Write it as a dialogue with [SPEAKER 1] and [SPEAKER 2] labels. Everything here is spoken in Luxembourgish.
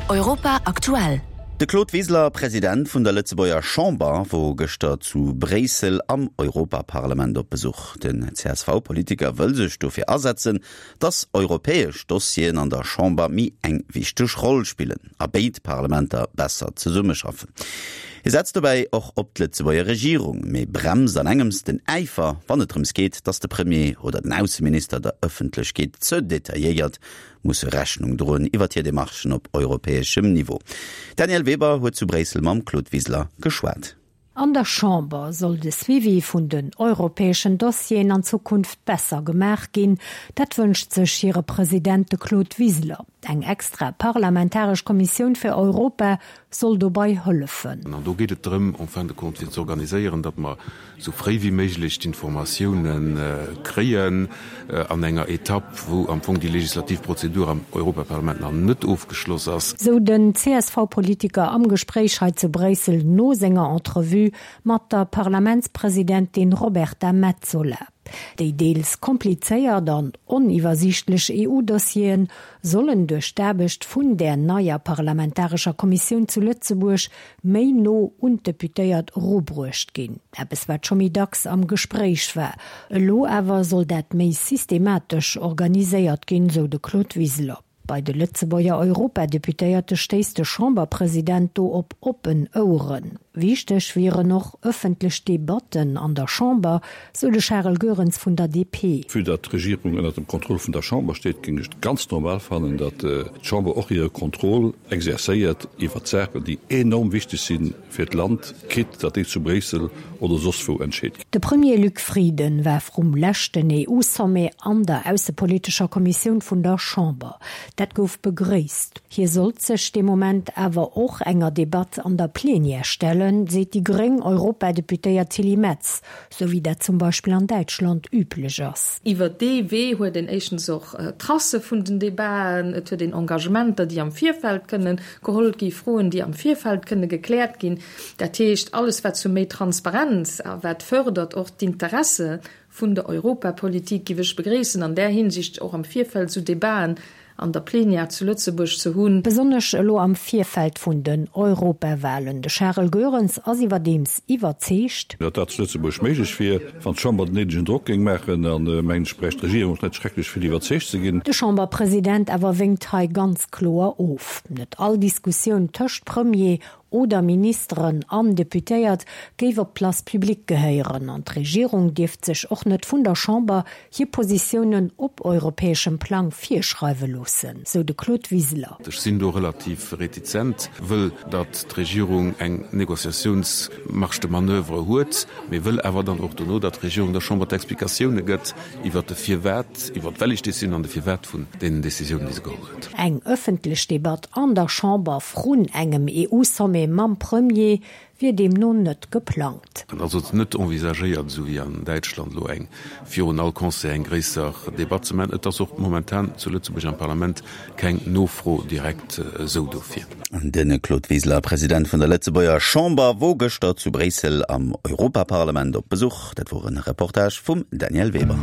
[SPEAKER 1] Europa aktuell.
[SPEAKER 2] De Claude Wiseler, President vun der Lëtzebuerger Chamber, wor gëschter zu Bréissel am Europaparlament op Besuch. Den CSV-Politiker wëll sech dofir asetzen, datt europäesch Dossieren an der Chamber méi eng wichteg Roll spillen a béid Parlamenter besser zesummeschaffen. Hie setzt dobäi och op d'Lëtzebuerger Regierung, mee bremst an engems den Äifer, wann et drëms geet, datt de Premier oder den Ausseminister der Ëffentlechkeet ze detailléiert musse Rechnung droen iwwert hir Demarchen op europäeschem Niveau. D'Danièle Weber huet zu Bréissel mam Claude Wiseler geschwat.
[SPEAKER 3] An der Chamber soll de Suivi vun den europäeschen Dossieren an Zukunft besser gemaach ginn. Dat wënscht sech hire President, de Claude Wiseler. Eng extra parlamentaresch Kommissioun fir Europa soll dobei hëllefen.
[SPEAKER 4] An do geet et drëm, en fin de compte, fir ze organiséieren, datt mer esou fréi wéi méiglech d'Informatiounen kréien an enger Etapp, wou am Fong déi legislativ Prozedur am Europaparlament nach net ofgeschloss ass.
[SPEAKER 3] Sou den CSV-Politiker am Gespréich hei zu Bréissel no senger Entrevue mat der Parlamentspresidentin Roberta Metsola. Déi deels komplizéiert an oniwwersiichtlech EU-Dossieren sollen duerch d'Aarbecht vun där neier parlamentarescher Kommissioun zu Lëtzebuerg méi no un d'Deputéiert erubruecht ginn. Eppes wat scho méi dacks am Gespréich war. Elo awer soll dat méi systematesch organiséiert ginn, sou de Claude Wiseler. Bei de Lëtzebuerger Europadeputéierte stéisst de Chamberpresident do op oppen Oueren. Wichteg wieren och ëffentlech Debatten an der Chamber, sou de Charel Goerens vun der DP.
[SPEAKER 5] Vue datt d'Regierung ënnert dem Contrôle vun der Chamber steet, géing ech et ganz normal fannen, datt d'Chamber och hire Contrôle exercéiert iwwert Saachen, déi enorm wichteg si fir d'Land, quitte datt déi zu Bréissel oder soss wou entscheet ginn.
[SPEAKER 3] De Premier Luc Frieden war vrum leschten EU-Sommet an der aussepolitescher Kommissioun vun der Chamber. Dat gouf begréisst. Hie sollt sech dee Moment awer och enger Debatt an der Plenière stellen, seet déi gréng Europadeputéiert Tilly Metz, sou wéi dat zum Beispill an Däitschland üblech ass.
[SPEAKER 6] Iwwer dee Wee huet een éischtens och Tracë vun den Debaten, et huet een Engagementer, déi am Virfeld kënnen geholl gi, Froen, déi am Virfeld kënne gekläert ginn. Dat heescht, alles wat zu méi Transparenz a wat fërdert och d'Interesse vun der Europapolitik, giff ech begréissen, an där Hinsicht och am Virfeld esou Debaten an der Plenière zu Lëtzebuerg ze hunn.
[SPEAKER 3] Besonnesch elo am Virfeld vun den Europawahlen. De Charel Goerens ass iwwerdeems iwwerzeegt.
[SPEAKER 5] Datt dat zu Lëtzebuerg méiglech wier, wann d'Chamber den néidegen Drock géing maachen. An, mengen ech, bräicht d'Regierung och net schrecklech vill iwwerzeegt ze ginn.
[SPEAKER 3] De Chamberpresident awer wénkt hei ganz kloer of. Net all Diskussioun tëscht Premier oder Ministeren an Deputéiert géif op d'Place publique gehéieren an d'Regierung dierft sech och net vun der Chamber hir Positiounen op europäeschem Plang virschreiwe loossen, sou de Claude Wiseler.
[SPEAKER 4] Ech sinn do relativ retizent, wëll datt d'Regierung eng Négociatiounsmarge de manoeuvre huet, mee wëll awer dann och dono, datt d'Regierung der Chamber d'Explikatioune gëtt iwwert de Firwat, iwwert d'wellig Décisioun an de Firwat vun deenen Décisiounen, déi se geholl huet.
[SPEAKER 3] Eng ëffentlech Debatt an der Chamber vrun engem EU-Sommet mam Premier wier deemno net geplangt.
[SPEAKER 4] Et ass also net envisagéiert, esou wéi an Däitschland elo eng virun all Conseil eng gréisser Debatt ze maachen. Et ass och momentan zu Lëtzebuerg am Parlament keng Nofro direkt esou dofir.
[SPEAKER 2] De Claude Wiseler, President vun der Lëtzebuerger Chamber, wor gëschter zu Bréissel am Europaparlament op Besuch. Dat wor e Reportage vum Danièle Weber.